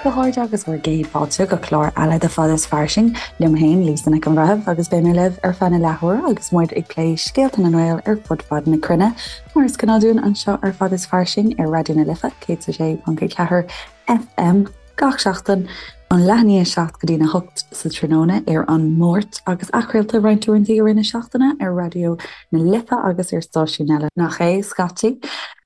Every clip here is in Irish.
a chairde agus bhur gcéad fáilte go clár eile de Fada is Fairsing, liom féin, Lisa Nic an Bhreithimh, agus beidh mé libh ar feadh na leathuaire agus muid ag plé scéalta na nGael ar fud fad na cruinne, mar is gnáth dúinn anseo ar Fada is Fairsing ar Raidió na Life 106.4 FM. Gach seachtain, ón leath i ndiaidh 7 go dtí'n 8 sa tráthnóna ar an Máirt agus athchraolta roinnt uaireanta i rith na seachtaine ar Raidió na Life agus ar stáisiúin eile, nach é, scaití.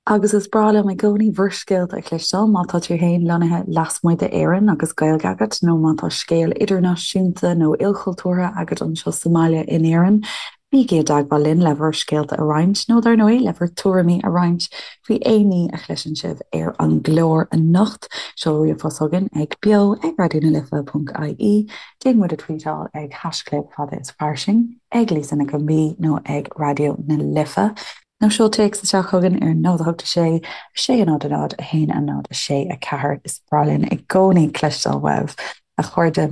Agus is breá liom i gcónaí bhur scéalta a chloisteáil, má tá tú féin lonnaithe lasmuigh d'Éirinn agus Gaeilge agat nó má tá scéal idirnáisiúnta nó ilchultúrtha agat anseo sa mbaile in Éirinn, Bígí i dteagmháil linn le bhur scéalta a roinnt, nó dar ndóigh, le bhur tuairimí a roinnt faoi aon ní a chloiseann sibh ar an gclár anocht. Seol ríomhphost chugainn ag beo ag raidionalife.ie, déan muid a tvuíteáil ag haischlib fada is fairsing, ag Lisa Nic an B nó ag Raidió na Life, nó seol téacs isteach chugainn ar 0 8 6 6 0 0 1 0 6 4. Is breá linn i gcónaí cloisteáil uaibh, a chairde.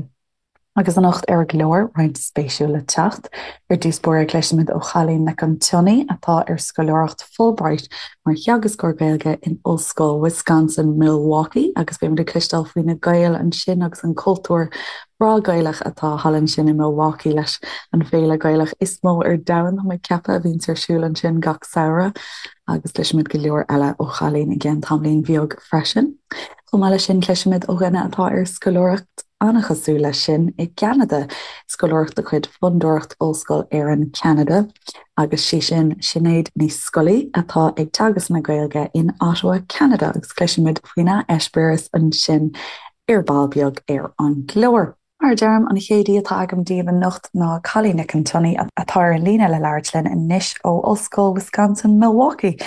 Agus anocht ar an gclár, roinnt spéisiúil le teacht. Ar dtús báire cloisfimid ó Chailín Nic an tSionnaigh atá ar scoláireacht Fulbright mar theagascóir Gaeilge in Ollscoil Wisconsin Milwaukee agus beimid ag cloisteáil faoi na Gaeil ansin agus an cultúr breá Gaelach atá thall ansin i Milwaukee leis an bhféile Gaelach is mó ar domhan, tá mé ag ceapadh, a bhíonns ar siúl ansin gach samhradh. Agus cloisfimid go leor eile ó Chailín i gceann tamaillín bheag freisin. Chomh maith leis sin cloisfimid ó dhuine atá ar scoláireacht an-chosúil leis sin i gCeanada, scoláireacht de chuid Fondúireacht Ollscoil Éireann Ceanada, agus sí sin Sinéad Ní Scolaí atá ag teagasc na Gaeilge in Ottawa, Ceanada, agus cloisfimid faoina heispéireas ansin ar ball beag ar an gclár. Mar a deirim, an chéad aoi atá agam daoibh anocht ná Cailín Nic an tSionnaigh atá ar an líne le labhairt linn anois ó Ollscoil Wisconsin Milwaukee.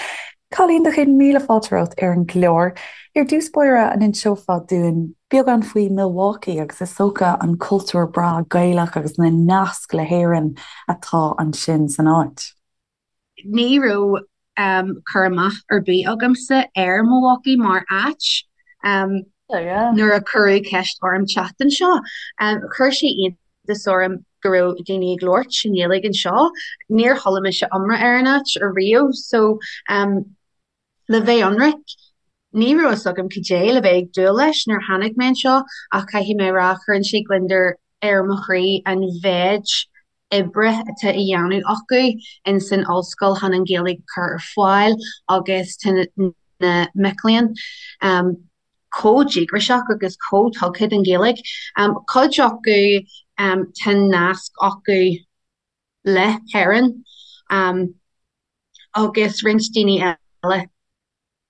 Cailín, do chéad míle fáilte romhat ar an gclár. Ar dtús báire, an inseofá dúinn beagán faoi Milwaukee agus is dócha an cultúr breá Gaelach agus na naisc le hÉirinn atá ansin san áit? Ní raibh cur amach ar bith agamsa ar Milwaukee mar áit nuair a cuireadh ceist orm teacht anseo. Chuir sé iontas orm go raibh daoine ag labhairt i nGaeilge anseo. Níor chuala mise iomrá ar an áit ariamh so le bheith ionraic, ní raibh fhios agam cad é le bheith ag dúil leis nuair a tháinig mé anseo ach caithfidh mé a rá cuireann sé gliondar ar mo chroí an mhéid oibre atá á dhéanamh acu in san ollscoil chun an Ghaeilge a chur ar fáil agus tá na mic léinn chomh díograiseach agus chomh tugtha don Ghaeilge. Cuid acu tá nasc acu le hÉirinn agus roinnt daoine eile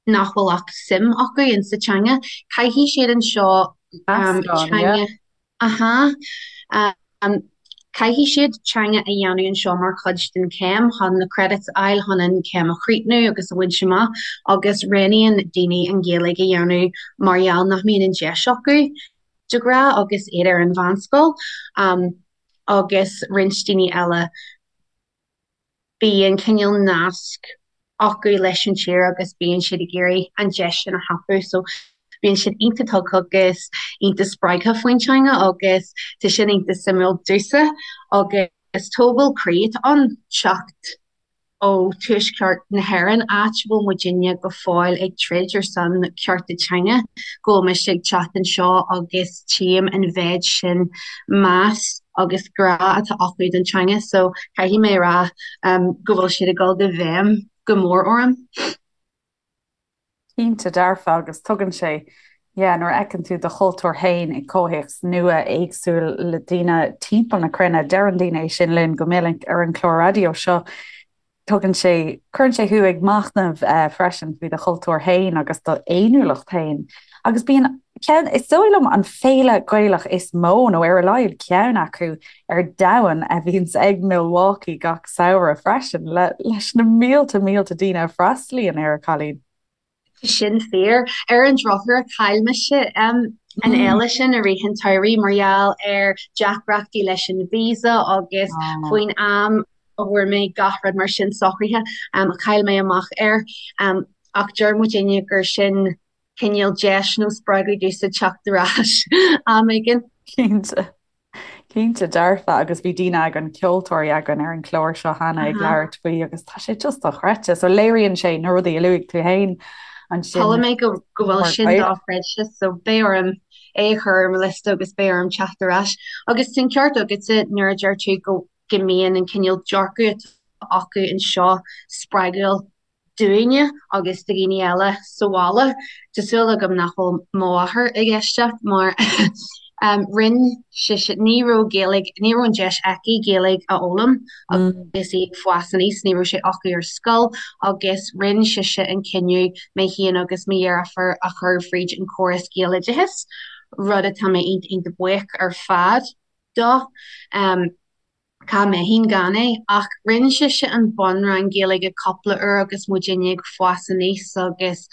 nach bhfuil ach suim acu in sa teanga. Caithfidh siad anseo teanga aha caithfidh siad teanga a dhéanamh anseo mar chuid den chéim chun na credits a fháil chun an chéim a chríochnú agus a bhaint amach agus roghnaíonn daoine an Ghaeilge a dhéanamh mar gheall nach mbíonn an deis acu de ghnáth agus iad ar an mheánscoil agus roinnt daoine eile bíonn cineál nasc acu leis an tír agus bíonn siad ag iarraidh an deis sin a thapú so bíonn siad iontach tugtha agus iontach spreagtha faoin teanga agus tá sin iontach suimiúil domhsa agus tógáil croí atá ann teacht ó tuaisceart na hÉireann, áit a bhfuil muidinne go fóill ag troid ar son cearta teanga, go bhfuil mise ag teacht anseo agus tchím an mhéid sin meas agus grá atá acu don teanga so caithfidh mé a rá go bhfuil siad ag dul i bhfeidhm go mór orm. Cinnte dearfa agus tugann sé, yeah, nuair a fheiceann tú do chultúr féin i gcomhthéacs nua éagsúil le daoine timpeall na cruinne, deireann daoine é sin linn go minic ar an chlár raidió seo, tugann sé, cuireann sé thú ag machnamh freisin faoi do chultúr féin agus do fhéiniúlacht féin. Agus bíonn ceann, is dóigh liom, an féile Gaelach is mó, nó ar a laghad ceann acu, ar domhan a bhíonns ag Milwaukee gach samhradh freisin, le, leis na mílte mílte daoine a freastalaíonn air, a Chailín. Tá sin fíor. Ar an drochuair, chaill mise an fhéile sin i rith an tsamhraidh mar gheall ar deacrachtaí leis an visa agus faoin am a bhfuair mé gach rud mar sin socraithe, chaill mé amach air. Ach deir muidinne gur sin cineál deis nó spreagadh domhsa teacht ar ais am éigin. Cinnte. Cinnte dearfa agus bhí daoine againn, ceoltóirí againn ar an chlár seo cheana ag labhairt faoi agus tá sé just dochreidte. So léiríonn sé na rudaí a luaigh tú féin ansin. Chuala mé go bhfuil sin dochreidte so beidh orm. é a chur ar mo liosta agus beidh orm teacht ar ais. Agus tá an ceart agatsa nuair a deir tú go go mbíonn an cineál dearcadh atá acu anseo spreagúil dúinne agus do dhaoine eile sa bhaile. Tá súil agam nach bhfuil mo mháthair ag éisteacht mar rinne sise, ní raibh Gaeilge, ní raibh an deis aici Gaeilge a fhoghlaim agus í ag fás aníos, ní raibh sé acu ar scoil agus rinne sise an cinneadh mé féin agus mo dheirfiúr a chur fríd an córas Gaeloideachais, rud atá mé iontach iontach buíoch ar fad dó. Cá mbeinn gan é? Ach rinne sise an bunrang Gaeilge cúpla uair agus muidinne ag fás aníos agus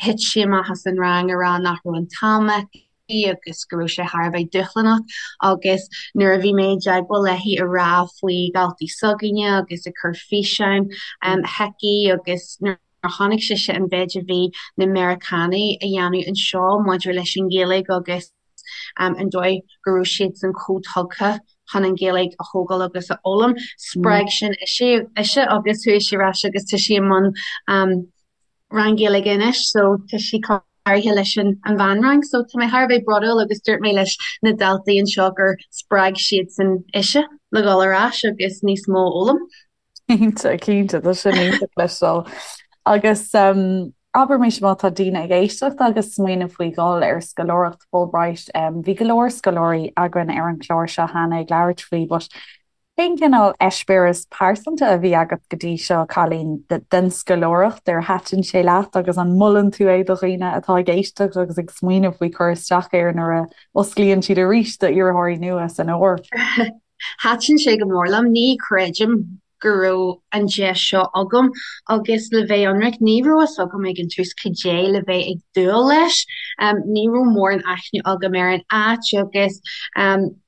thit sí amach as an rang a rá nach raibh an t-am aici agus go raibh sé thar a bheith dúshlánach agus nuair a bhí mé i dteagmháil léi a rá faoi dhaltaí s'againne agus ag cur físeáin chuici agus nuair a chonaic sise an mhéid a bhí na Meiriceánaigh a dhéanamh anseo maidir leis an Ghaeilge agus an dóigh go raibh siadsan chomh tugtha chun an Ghaeilge a thógáil agus a fhoghlaim. Spreag sin ise agus chuaigh sí ar ais agus tá sí i mbun rang Gaeilge anois so tá sí cláraithe leis an mheánrang so tá mé thar a bheith brodúil agus dúirt mé leis na daltaí anseo gur spreag siadsan ise le dhul ar ais agus níos mó a fhoghlaim. Cinnte, cinnte, tá sin iontach le cloisteáil. Agus abair mise má tá daoine ag éisteacht agus smaoineamh faoi dhul ar scoláireacht Fulbright, bhí go leor scoláirí againn ar an chlár seo cheana ag labhairt faoi, but cén cineál eispéireas pearsanta a bhí agat go dtí seo, Cailín, den scoláireacht, ar thaitin sé leat agus an molann tú é do dhaoine atá ag éisteacht agus ag smaoineamh faoi cur isteach air nuair a osclaíonn siad arís d'iarrthóirí nua san fhómhar? Thaitin sé go mór liom. Ní chreidim go raibh an deis seo agam agus le bheith ionraic, ní raibh fhios agam ag an tús cad é le bheith ag dúil leis. Ní raibh mórán aithne agam ar an áit agus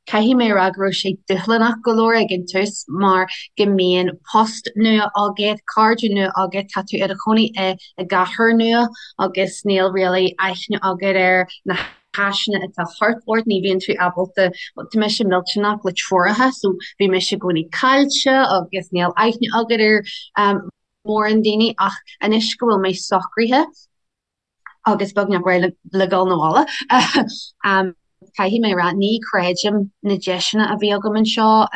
caithfidh mé a rá go raibh sé dúshlánach go leor ag an tús mar go mbíonn post nua agat, cairde nua agat, tá tú i do chónaí i gcathair nua agus níl really aithne agat ar na háiseanna atá thart ort, ní bhíonn tú ábalta, bhuel, tá mise millteanach le treoracha so bhí mise i gcónaí caillte agus níl aithne agat ar mórán daoine ach anois go bhfuil mé socraithe agus beagnach réidh le dhul 'na bhaile, caithfidh mé a rá, ní chreidim na deiseanna a bhí agam anseo.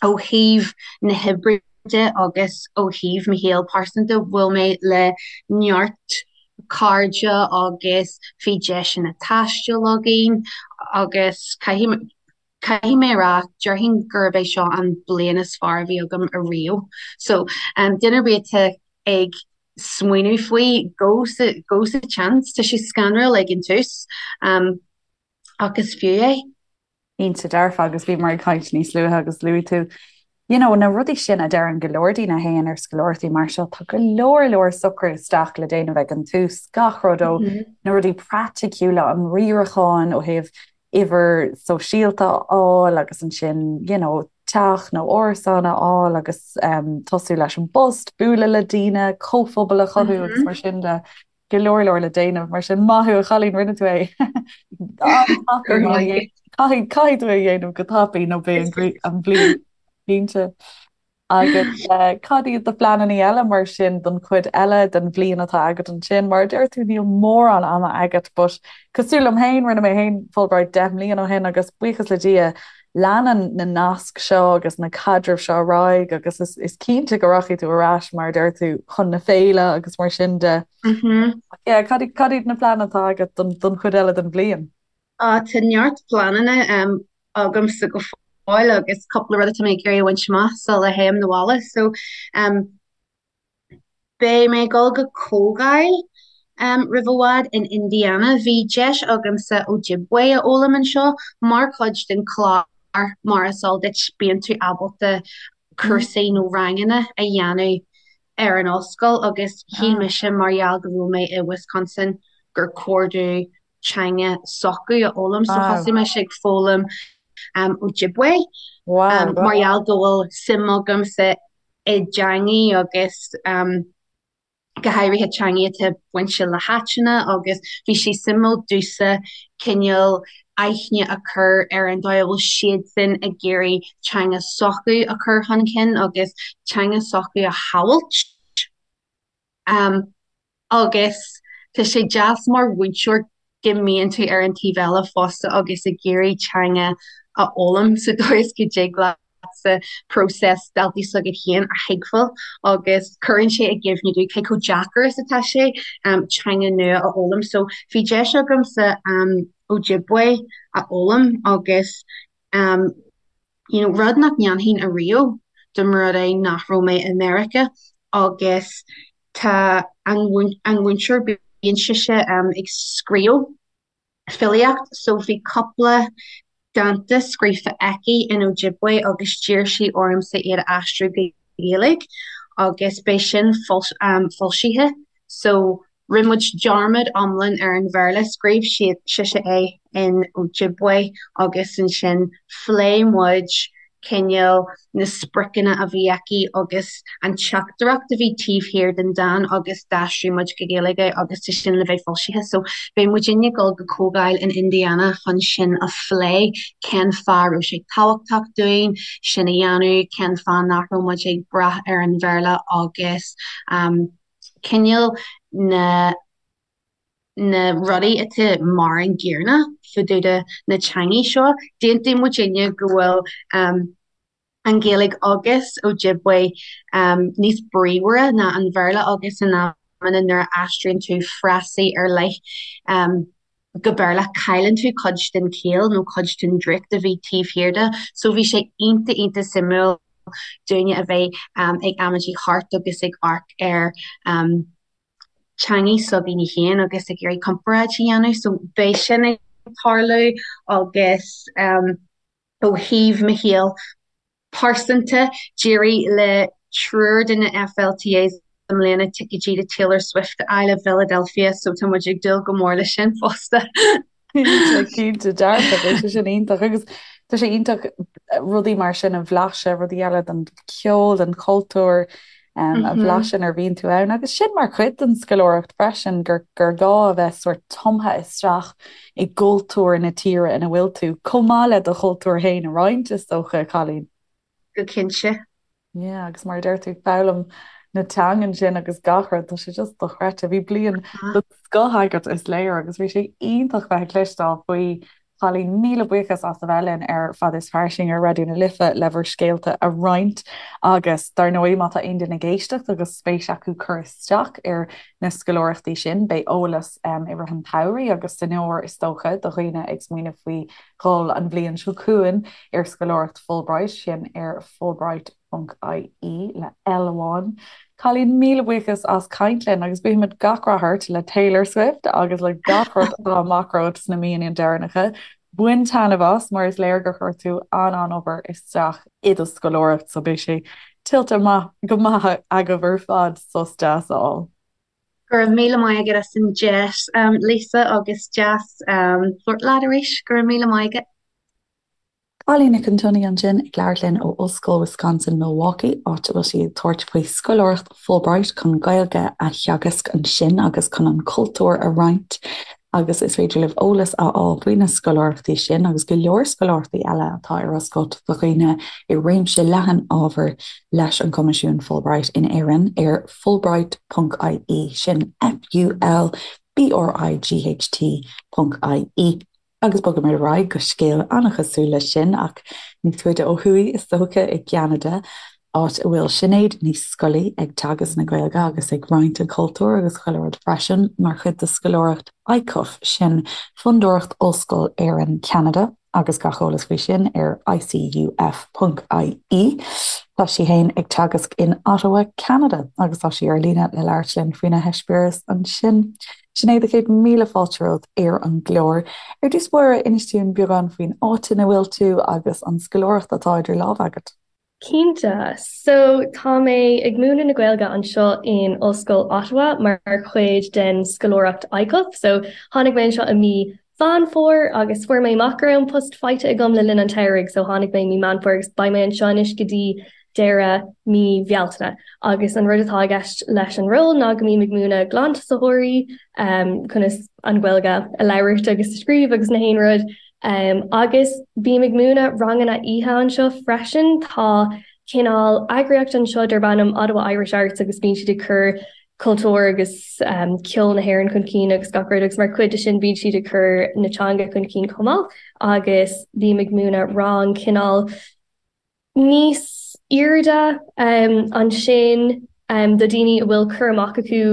Ó thaobh na hoibre de agus ó thaobh mo shaol pearsanta, bhuail mé le neart cairde agus bhí deiseanna taistil againn agus caithfidh caithfidh mé a rá, déarfainn gurb é seo an bliain is fearr a bhí agam ariamh. So, duine ar bith atá ag smaoineamh faoi, go sa go sa tseans, tá sé scanrúil ag an tús ach is fiú é. Cinnte dearfa agus bhíomar ag caint níos luaithe agus luaigh tú you know na rudaí sin a deireann go leor daoine a théann ar scoláireachtaí mar seo, tá go leor leor socrú isteach le déanamh ag an tús, gach rud ó na rudaí praiticiúla, an riarachán ó thaobh uimhir sóisialta a fháil agus ansin you know teach nó árasán a fháil agus um, tosú leis an bpost, bualadh le daoine, comhphobal a chothú agus mar sin de. Go leor leor le déanamh, mar sin maith thú a chailín, rinne tú é. Caithfidh caithfidh tú é a dhéanamh go tapaidh nó beidh an bhliain cinnte. Agus cad iad do phleananna eile mar sin don chuid eile den bhliain atá agat ansin? Mar a deir tú níl mórán ama agat but cosúil liom féin, rinne mé féin Fulbright 10 mbliana ó shin agus buíochas le Dia leanann na naisc seo agus na caidrimh seo ar aghaidh agus is, is cinnte go rachaidh tú ar ais mar a deir tú chun na féile agus mar sin de. Mm -hmm. Yeah, cad, cad iad na pleananna atá agat don, don chuid eile den bhliain? Uh, tá neart pleananna um, agamsa go fóill agus cúpla rud atá mé ag iarraidh a bhaint amach sula théim 'na bhaile. So um, Beidh mé ag dul go comhdháil roimh i bhfad in Indiana. Bhí deis agamsa Ojibwe a fhoghlaim anseo mar chuid den chlár mar is eol duit bíonn tú ábalta cúrsaí nó ranganna a dhéanamh ar an ollscoil agus shíl mise mar gheall go raibh mé i Wisconsin gur chóir domh teanga s'acu a fhoghlaim so thosaigh mise ag foghlaim Ojibwe mar gheall go bhfuil suim agamsa i dteangaí agus go háirithe teangaí atá bainte le háiteanna agus bhí sé suimiúil domhsa cineál aithne a chur ar an dóigh a bhfuil siadsan ag iarraidh teanga s'acu a chur chun cinn agus teanga s'acu a shábháilt. Agus tá sé deas mar mhúinteoir. go mbíonn tú ar an taobh eile fosta agus ag iarraidh teanga a fhoghlaim sa dóigh is go dtig leatsa próiseas daltaí s'agat féin a thuigbheáil agus cuireann sé i gcuimhne duit cé chomh deacair is atá sé teanga nua a fhoghlaim. So bhí deis agamsa Ojibwe a fhoghlaim agus you know rud nach ndéanfainn ariamh dá mba rud é nach raibh mé i Meiriceá agus tá an an mhúinteoir bíonn sise ag scríobh filíocht so bhí cúpla dánta scríofa aici in Ojibwe agus d'iarr sí ormsa iad a aistriú go Gaeilge agus beidh sin foilsithe so rinne muid dearmad iomlán ar an Bhéarla, scríobh sise é in Ojibwe agus ansin phléigh muid cineál na spriocanna a bhí aici agus an teachtaireacht a bhí taobh thiar den dán agus d'aistrigh muid go Gaeilge é agus tá sin le bheith foilsithe. So beidh muidinne ag dul go comhdháil in Indiana chun sin a phlé, cén fáth a raibh sé tábhachtach dúinn sin a dhéanamh, cén fáth nach raibh muid ag brath ar an Bhéarla agus cineál na na rudaí atá mar an gcéanna fá dtaobh de na teangaí seo. D'aontaigh muidinne go bhfuil an Ghaeilge agus Ojibwe níos bríomhaire ná an Bhéarla agus in amanna nuair a aistríonn tú frásaí ar leith go Béarla cailleann tú cuid den chiall nó cuid den draíocht a bhí taobh thiar de. So bhí sé iontach iontach suimiúil dúinne a bheith ag amaidí thart agus ag amharc ar teangaí s'againne féin agus ag iarraidh comparáid a dhéanamh. So beidh sin ag tarlú agus ó thaobh mo shaol pearsanta, d'éirigh le triúr de na FLTAs i mbliana ticéidí do Taylor Swift a fháil i bhPhiladelphia so tá muid ag dúil go mór leis sin fosta. Cinnte, cinnte, dearfa, beidh sé sin iontach agus tá sé iontach rudaí mar sin a bhlaiseadh, rudaí eile den cheol, den chultúr a bhlaiseadh nuair a bhíonn tú ann agus sin mar chuid den scoláireacht freisin gur gur gá a bheith sórt tumtha isteach i gcultúr na tíre ina bhfuil tú, chomh maith le do chultúr féin a roinnt, is dócha, a Chailín. Go cinnte. Yeah, agus mar a deir tú, foghlaim na teangan sin agus gach rud, tá sé just dochreidte. Bhí bliain den scoth agat, is léir, agus bhí sé iontach bheith ag cloisteáil faoi. Chailín, míle buíochas as a bheith linn ar Fad is Fairsing ar Raidió na Life le bhur scéalta a roinnt agus dar ndóigh má tá aon duine ag éisteacht agus spéis acu cur isteach ar na scoláireachtaí sin, beidh eolas i rith an tsamhraidh agus san fhómhar is dócha do dhaoine ag smaoineamh faoi dhul an bhliain seo chugainn ar scoláireacht Fulbright, sin ar Fulbright. ponc ie le L amháin. Cailín, míle buíochas as caint linn agus guímid gach rath ort le Taylor Swift agus le gach rud atá amach romhat sna míonna deireanacha. Bain taitneamh as mar is léir gur chuir tú an-an-obair isteach i do scoláireacht so beidh sé tuillte maith go maith agaibh ar fad sos deas a fháil. Go raibh míle maith agat as an deis, Lisa, agus deas labhairt leat arís. Go raibh míle maith agat. Cailín Nic an tSionnaigh ansin ag labhairt linn ó Ollscoil Wisconsin-Milwaukee, áit a bhfuil sí ag tabhairt faoi scoláireacht Fulbright chun Gaeilge a theagasc ansin agus chun an cultúr a roinnt. Agus is féidir libh eolas a fháil faoi na scoláireachtaí sin agus go leor scoláireachtaí eile atá ar oscailt do dhaoine i réimse leathan ábhar leis an gCoimisiún Fulbright in Éirinn ar fulbright ponc ie, sin F-U-L-B-R-I-G-H-T ponc ie. Agus bogaimid ar aghaidh go scéal an-chosúil leis sin, ach níos faide ó thuaidh is dócha, i gCeanada, áit a bhfuil Sinéad Ní Scolaí ag teagasc na Gaeilge agus ag roinnt an chultúir agus chuile rud freisin, mar chuid de scoláireacht ICUF, sin Fondúireacht Ollscoil Éireann Ceanada, agus gach eolas faoi sin ar icuf.ie. Tá sí féin ag teagasc in Ottawa, Ceanada, agus tá sí ar líne le labhairt linn faoina heispéireas ansin. Sinéad, a chéad míle fáilte romhat ar an gclár. Ar dtús báire, inis dúinn beagán faoin áit ina bhfuil tú agus an scoláireacht atá idir lámha agat. Cinnte. So, tá mé ag múineadh na Gaeilge anseo in Ollscoil Ottawa mar chuid den scoláireacht ICUF. So, tháinig mé anseo i mí Mheán Fómhair agus fuair mé amach go raibh an post faighte agam le linn an tsamhraidh. So, tháinig mé i mí Meán Fómhair agus beidh mé anseo anois go dtí deireadh mí Bhealtaine. Agus an rud atá i gceist leis an ról ná go mbím ag múineadh glantosaitheoirí conas an Ghaeilge a labhairt agus a scríobh agus na haon rud. Agus bím ag múineadh ranganna oíche anseo freisin. Tá cineál eagraíocht anseo darb ainm Ottawa Irish Arts agus bíonn siad ag cur. cultúr agus ceol na hÉireann chun cinn agus gach rud agus mar chuid de sin bíonn siad ag cur na teanga chun cinn chomh maith agus bím ag múineadh rang cineál níos airde ansin do daoine a bhfuil cur amach acu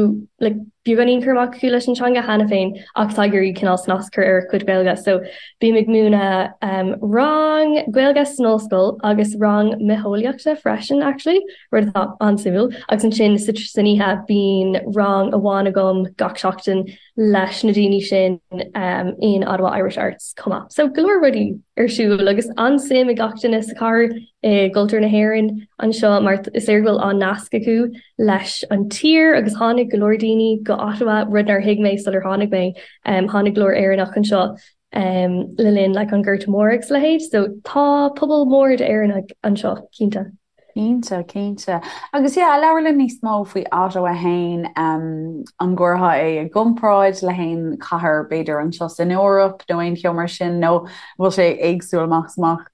like beagáinín cur amach acu leis an teanga cheana féin ach atá ag iarraidh cineál snas a chur ar a gcuid Gaeilge. So bím ag múineadh rang Gaeilge san ollscoil agus rang mitheolaíochta freisin actually, rud atá an-suimiúil. Agus ansin san oíche bíonn rang amháin agam gach seachtain leis na daoine sin in Ottawa Irish Arts chomh maith. So go leor rudaí ar siúl agus an-suim ag gach duine sa chathair i gcultúr na hÉireann anseo mar is léir go bhfuil an-nasc acu leis an tír agus tháinig go leor daoine go Ottawa, rud nár thuig mé sular tháinig mé. Tháinig go leor Éireannach anseo le linn like an Gorta Mór agus a leithéid so tá pobal mór d'Éireannaigh anseo cinnte. Cinnte, cinnte. Agus yeah, labhair linn níos mó faoi Ottawa fhéin, an gcuirfeá é i gcomparáid le haon chathair b'fhéidir anseo san Eoraip nó aon cheo mar sin nó an bhfuil sé éagsúil amach is amach?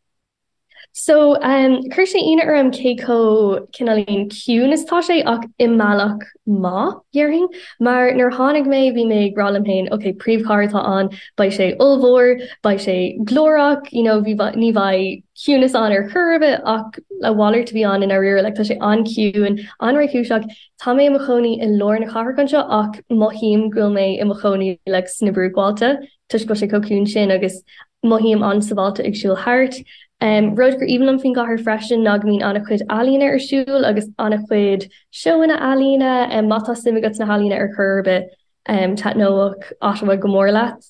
So, chuir sé ionadh orm cé chomh cineáilín ciúin is atá sé ach i mbealach maith, dhéarfainn. Mar nuair a tháinig mé bhí mé ag rá liom féin, ok, príomhchathair atá ann, beidh sé ollmhór, beidh sé glórach, you know, ní bheidh ciúnas ann ar chor ar bith ach a mhalairt a bhí ann i ndáiríre, like tá sé an-chiúin, an-réchúiseach. Tá mé i mo chónaí i lár na cathrach anseo ach mothaím go bhfuil mé i mo chónaí like sna bruachbhailte toisc go bhfuil sé chomh ciúin sin agus mothaím an-sábháilte ag siúl thart. Um, rud gur aoibhinn liom faoin gcathair freisin ná go mbíonn an-chuid ealaíne ar siúl agus an-chuid seóanna ealaíne, um, má tá suim agat sna healaíona ar chor ar bith. Taitneoidh Ottawa go mór leat.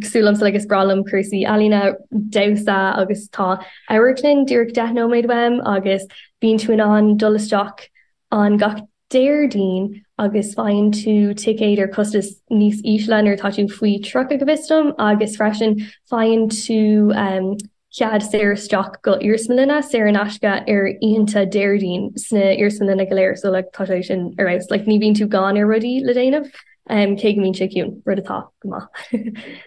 Cosúil liomsa like is breá liom cúrsaí ealaíne, damhsa agus tá amharclann díreach 10 nóiméad uaim agus bíonn tú in ann dul isteach ann gach Déardaoin agus faigheann tú ticéad ar costas níos ísle nuair atá tú faoi 30 go bhfios dom agus freisin faigheann tú cead saor isteach go iarsmalanna saor in aisce ar oícheanta Déardaoin sna iarsmalanna go léir so like tá sé sin ar fheabhas like ní bhíonn tú gann ar rudaí le déanamh um, cé go mbíonn sé ciúin, rud atá go maith.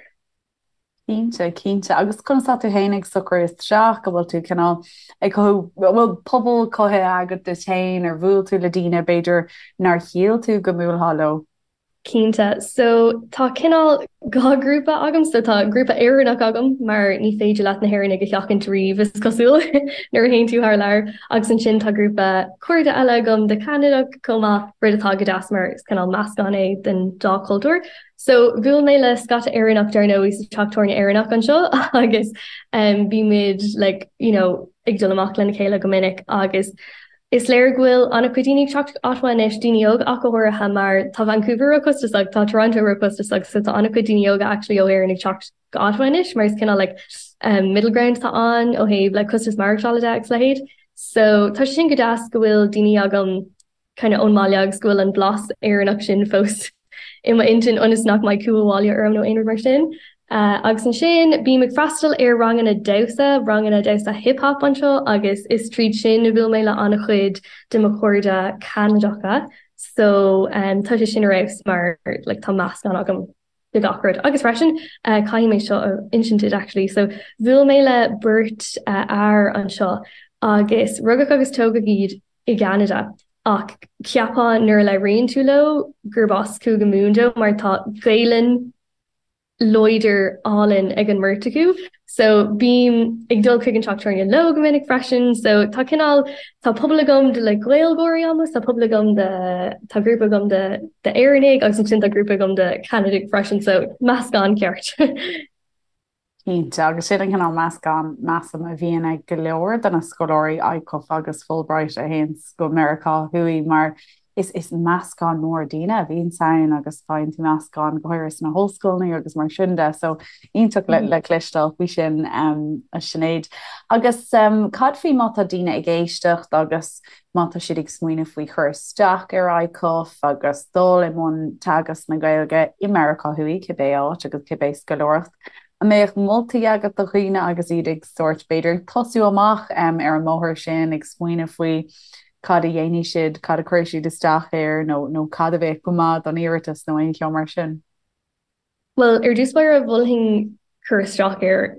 Cinnte, cinnte. Agus conas tá tú féin ag socrú isteach, an bhfuil tú cineál ag cothú, an bhfuil pobal cothaithe agat duit féin, ar bhuail tú le daoine b'fhéidir nár shíl tú go mbuailfeá leo? Cinnte. So, tá cineál dhá ghrúpa agam. So, tá grúpa Éireannach agam mar ní féidir leat na hÉireannaigh a sheachaint riamh, is cosúil, nuair a théann tú thar lear. Agus ansin tá grúpa cairde eile agam de Cheanadach chomh maith, rud atá go deas mar is cineál meascán é den dá chultúr. So, bhuail mé le scata Éireannach dar ndóigh sa teach tábhairne Éireannach anseo agus um, bímid like, you know, ag dul amach lena chéile go minic agus Is léir go bhfuil an-chuid daoine ag teacht go Ottawa anois, daoine óga ach go háirithe, mar tá Vancouver ró-chostasach, tá Toronto ró-chostasach, so tá an-chuid daoine óga actually ó Éirinn ag teacht go Ottawa anois mar is cineál like um, middle ground atá ann ó thaobh like costas maireachtála de agus a leithéid. So tá sé sin go deas go bhfuil daoine agam kind of ón mbaile agus go bhfuil an blas Éireannach sin fós i m'intinn ionas nach mbeidh cumha bhaile orm nó aon rud mar sin. Agus ansin bím ag freastal ar ranganna damhsa, ranganna damhsa hip hop anseo agus is tríd sin a bhuail mé le an-chuid de mo chairde Ceanadacha so tá sé sin ar fheabhas mar like tá meascán agam de gach rud. Agus freisin caithfidh mé seo a insint duit actually so bhuail mé le beirt fhear anseo agus rugadh agus tógadh iad i gCeanada ach cheapfá nuair a labhraíonn tú leo gurb as Cúige Mumhan dóibh mar tá Gaelainn láidir álainn ag an mbeirt acu. So bím ag dul chuig an teach tábhairne leo go minic freisin. So tá cineál tá pobal agam de like Gaeilgeoirí almost, tá pobal agam de tá grúpa agam de d'Éireannaigh agus ansin tá grúpa agam de Cheanadaigh freisin so meascán ceart. Cinnte, agus sin an cineál meascán, measaim, a bhíonn ag go leor de na scoláirí ICUF agus Fulbright a théanns go Meiriceá Thuaidh mar is is meascán mór daoine a bhíonns ann agus faigheann tú meascán go háirithe sna hollscoileanna agus mar sin de so iontach le le cloisteáil faoi sin a Sinéad. Agus cad faoi má tá daoine ag éisteacht agus má tá siad ag smaoineamh faoi chur isteach ar ICUF agus dul i mbun teagasc na Gaeilge i Meiriceá Thuaidh, cibé áit agus cibé scoláireacht, an mbeadh moltaí agat do dhaoine agus iad ag sórt, b'fhéidir, ag tosú amach ar an mbóthar sin, ag smaoineamh faoi cad a dhéanfaidh siad, cad a chuirfidh siad isteach air nó nó cad a bheadh go maith don iarratas nó aon cheo mar sin? Bhuel, ar dtús báire, mholfainn cur isteach air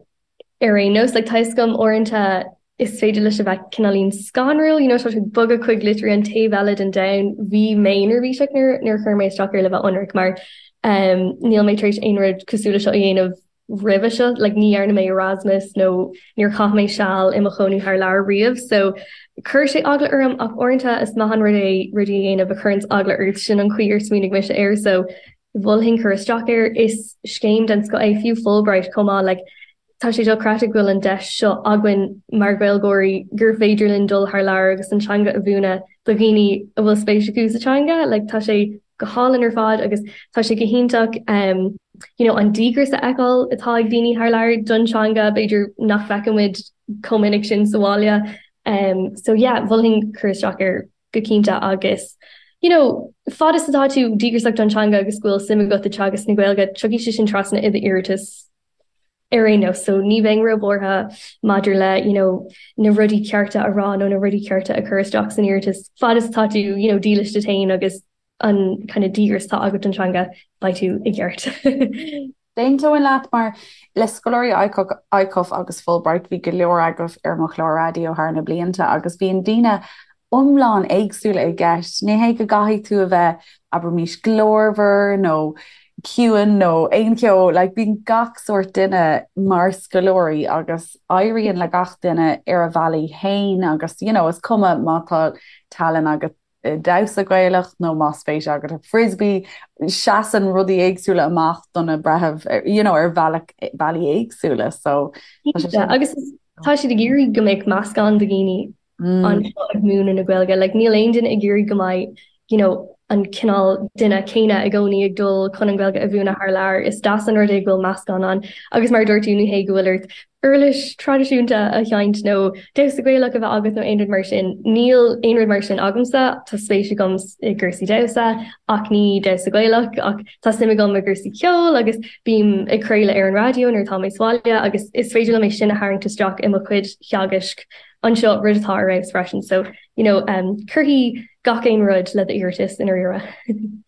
ar aon nós. Like, tá a fhios agam uaireanta. Is féidir leis a bheith cineáilín scanrúil, you know, tá tú ag bogadh chuig literally an taobh eile den domhan. Bhí mé neirbhíseach nuair nuair a chuir mé isteach air le bheith ionraic mar um, níl mé tar éis aon rud cosúil le seo a dhéanamh roimhe seo, like ní dhearna mé Erasmus nó níor chaith mé seal i mo chónaí thar lear riamh, so chuir sé eagla orm ach uaireanta is maith an rud é rudaí a dhéanamh a chuireanns eagla ort, sin an chaoi ar smaoinigh mise air, so mholfainn cur isteach air. Is scéim den scoth é, fiú Fulbright chomh maith, like Tá sé dochreidte go bhfuil an deis seo againn mar Ghaeilgeoirí gur féidir linn dul thar lear agus an teanga a mhúineadh do dhaoine a bhfuil spéis acu sa teanga. Like tá sé go hálainn ar fad agus tá sé go hiontach um, you know, an díograis a fheiceáil atá ag daoine thar lear don teanga, b'fhéidir nach bhfeiceann muid chomh minic sin sa bhaile. Um, so yeah, mholfainn cur isteach air go cinnte agus you know, fad is atá tú díograiseach don teanga agus go bhfuil suim agat i teagasc na Gaeilge, tiocfaidh sé sin trasna i d'iarratas ar aon nós. So ní bheinn róbhuartha maidir le you know, na rudaí cearta a rá nó na rudaí cearta a chur isteach san iarratas. Fad is atá tú you know, dílis duit féin agus an kind of díograis atá agat don teanga, beidh tú i gceart. D'aontóinn leat mar le scoláirí ICUF agus Fulbright bhí go leor agaibh ar mo chlár raidió thar na blianta agus bíonn daoine iomlán éagsúla i gceist. Ní hé go gcaithfidh tú a bheith, abraimís, glórmhar nó ciúin nó aon cheo, like, bíonn gach sórt duine mar scoláirí agus éiríonn le gach duine ar a bhealaí féin agus, you know, is cuma má tá tallann agat i damhsa Gaelach nó más spéis agat i frisbee, seasann rudaí éagsúla amach do na breithimh, you know, ar bhealach, bealaí éagsúla. So, tá sé sin. Agus tá siad ag iarraidh go mbeadh meascán de dhaoine anseo ag múineadh na Gaeilge. Like, níl aon duine ag iarraidh go mbeidh, you know, an cineál duine céanna i gcónaí ag dul chun an Ghaeilge a mhúineadh thar lear. Is deas an rud é go bhfuil meascán ann. Agus mar a dúirt tú, ní hé go bhfuil ort uirlis traidisiúnta a sheinnt nó damhsa Gaelach a bheith agat nó aon rud mar sin. Níl aon rud mar sin agamsa. Tá spéis agam i gcúrsaí damhsa ach ní damhsa Gaelach ach tá suim agam i gcúrsaí ceoil agus bím ag craoladh ar an raidió nuair atá mé sa bhaile agus is féidir liom é sin a tharraingt isteach i mo chuid theagaisc anseo, rud atá ar fheabhas freisin. So, you know, um, cuirfidh gach aon rud le d'iarratas i ndáiríre.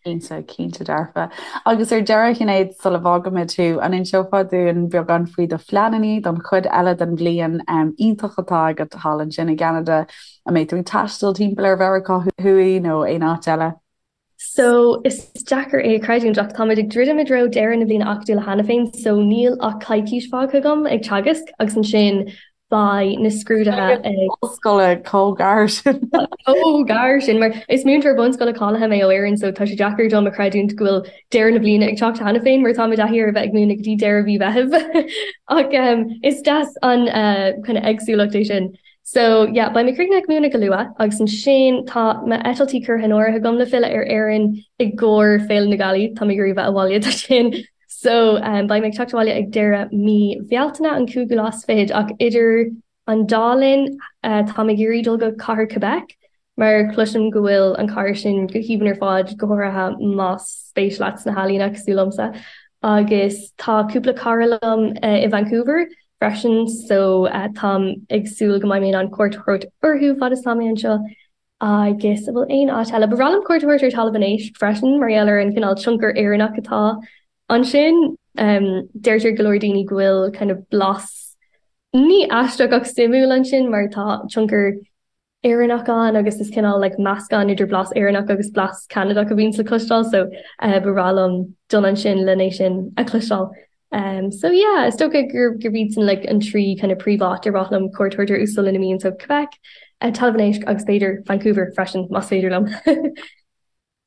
Cinnte, cinnte dearfa. Agus ar deireadh, Shinéad, sula bhfágaimid thú, an inseofá dúinn beagán faoi do phleananna don chuid eile den bhliain um, iontach atá agat thall ansin i gCeanada? An mbeidh tú ag taisteal timpeall ar Mheiriceá Thuaidh nó aon áit eile? So, is deacair é a chreidiúint ach táimid ag druidim i dtreo deireadh na bliana acadúla cheana féin so níl ach coicís fágtha agam ag teagasc agus ansin beidh na scrúduithe ag. Ollscoile chomh gar sin. Chomh gar sin mar is múinteoir bunscoile cáilithe mé ó Éirinn so tá sé deacair dom a chreidiúint go bhfuil deireadh na bliana ag teacht cheana féin mar tá mé i dtaithí ar a bheith ag múineadh go dtí deireadh mhí Mheithimh ach is deas an kind of éagsúlacht é sin. So yeah, beidh mé críochnaithe ag múineadh go luath agus ansin tá m'eitiltí curtha in áirithe agam le filleadh ar Éirinn i gcomhair Féile na Gealaí, tá mé ag iarraidh bheith abhaile do sin. So um, beidh mé ag teacht abhaile ag deireadh mí Bhealtaine an cúigiú lá is fichead ach idir an dá linn uh, tá mé ag iarraidh dul go cathair Quebec mar cloisim go bhfuil an chathair sin go haoibhinn ar fad, go háirithe más spéis leat sna healaíona cosúil liomsa. Agus tá cúpla cara liom i Vancouver freisin so táim ag súil go mbeidh mé in ann cuairt a thabhairt orthu fad is atá mé anseo. Agus an bhfuil aon áit eile? Ba bhreá liom cuairt a thabhairt ar Talamh an Éisc freisin mar gheall ar an cineál tionchar Éireannach atá ansin. Deirtear go leor daoine go bhfuil kind of blas ní aisteach ach suimiúil ansin mar tá tionchar Éireannach ann agus is cineál like meascán idir blas Éireannach agus blas Ceanadach a bhíonns le cloisteáil so eh, ba bhreá liom dul ansin len é sin a chloisteáil. Um, so yeah, is dócha gur gurb iad sin like an trí kind of príomháit ar mhaith liom cuairt a thabhairt orthu sula n-imím so Quebec, uh, Talamh an Éisc agus b'fhéidir Vancouver freisin más féidir liom.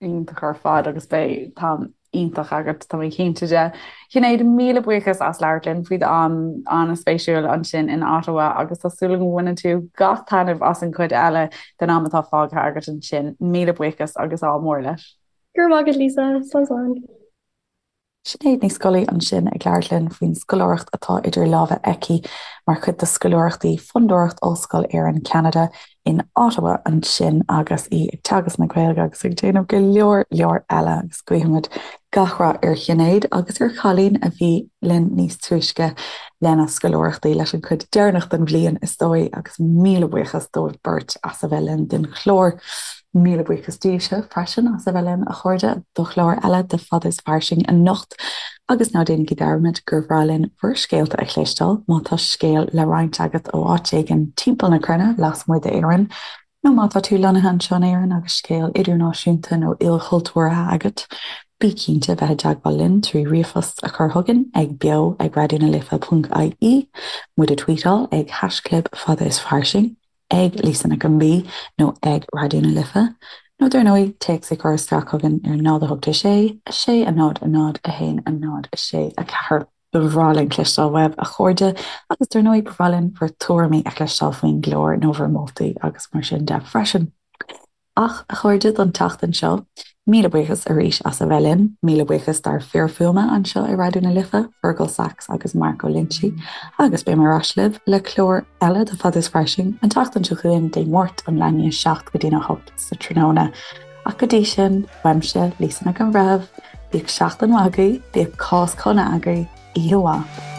Iontach ar fad agus beidh t-am iontach agat, tá mé cinnte de. Sinéad, míle buíochas as labhairt linn faoi d'am an-spéisiúil ansin in Ottawa agus tá súil agam go mbaineann tú gach taitneamh as an chuid eile den am atá fágtha agat ansin. Míle buíochas agus ádh mór leat. Go raibh maith agat, Lisa. Slán slán. Sinéad Ní Scolaí ansin ag labhairt linn faoin scoláireacht atá idir lámha aici mar chuid de scoláireachtaí Fondúireacht Ollscoil Éireann Ceanada in Ottawa ansin agus í ag teagasc na Gaeilge agus ag déanamh go leor leor eile agus guímid gach rath ar Shinéad agus ar Chailín a bhí linn níos túisce lena scoláireachtaí leis an chuid deireanach den bhliain is dóigh agus míle buíochas dóibh beirt as a bheith linn don chlár. Míle buíochas daoibhse freisin as a bheith linn, a chairde, do chlár eile de Fada is Fairsing anocht. Agus ná déanaigí dearmad gur bhreá linn bhur scéalta a chloisteáil, má tá scéal le roinnt agat ó áit éigin timpeall na cruinne lasmuigh d'Éirinn, nó má tá tú lonnaithe anseo in Éirinn agus scéal idirnáisiúnta nó ilchultúrtha agat, bí cinnte bheith i dteagmháil linn trí ríomhphost a chur chugainn ag beo ag raidionalife.ie, muid a tweetáil ag haischlib fada is fairsing. ag Lisa Nic an B nó ag Raidió na Life, nó dar ndóigh, téacs a chur isteach chugainn ar 0 8 6 6 0 0 1 0 6 4. Ba bhreá linn cloisteáil uaibh, a chairde, agus dar ndóigh, ba bhreá linn bhur tuairimí a chloisteáil faoin gclár nó bhur moltaí agus mar sin de freisin. Ach, a chairde, don tseachtain seo, míle buíochas arís as a bheith linn. Míle buíochas dár fir fuaime anseo i Raidió na Life, Fergal Sachs agus Mark Ó Loinsigh, agus beidh mé ar ais libh le clár eile de Fada is Fairsing an tseachtain seo chugainn, Dé Máirt ón leath i ndiaidh 7 go dtína 8 sa tráthnóna. Ach go dtí sin, uaimse, Lisa Nic an Bhreithimh, bíodh seachtain mhaith agaibh, bíodh Cásc shona agaibh, oíche mhaith.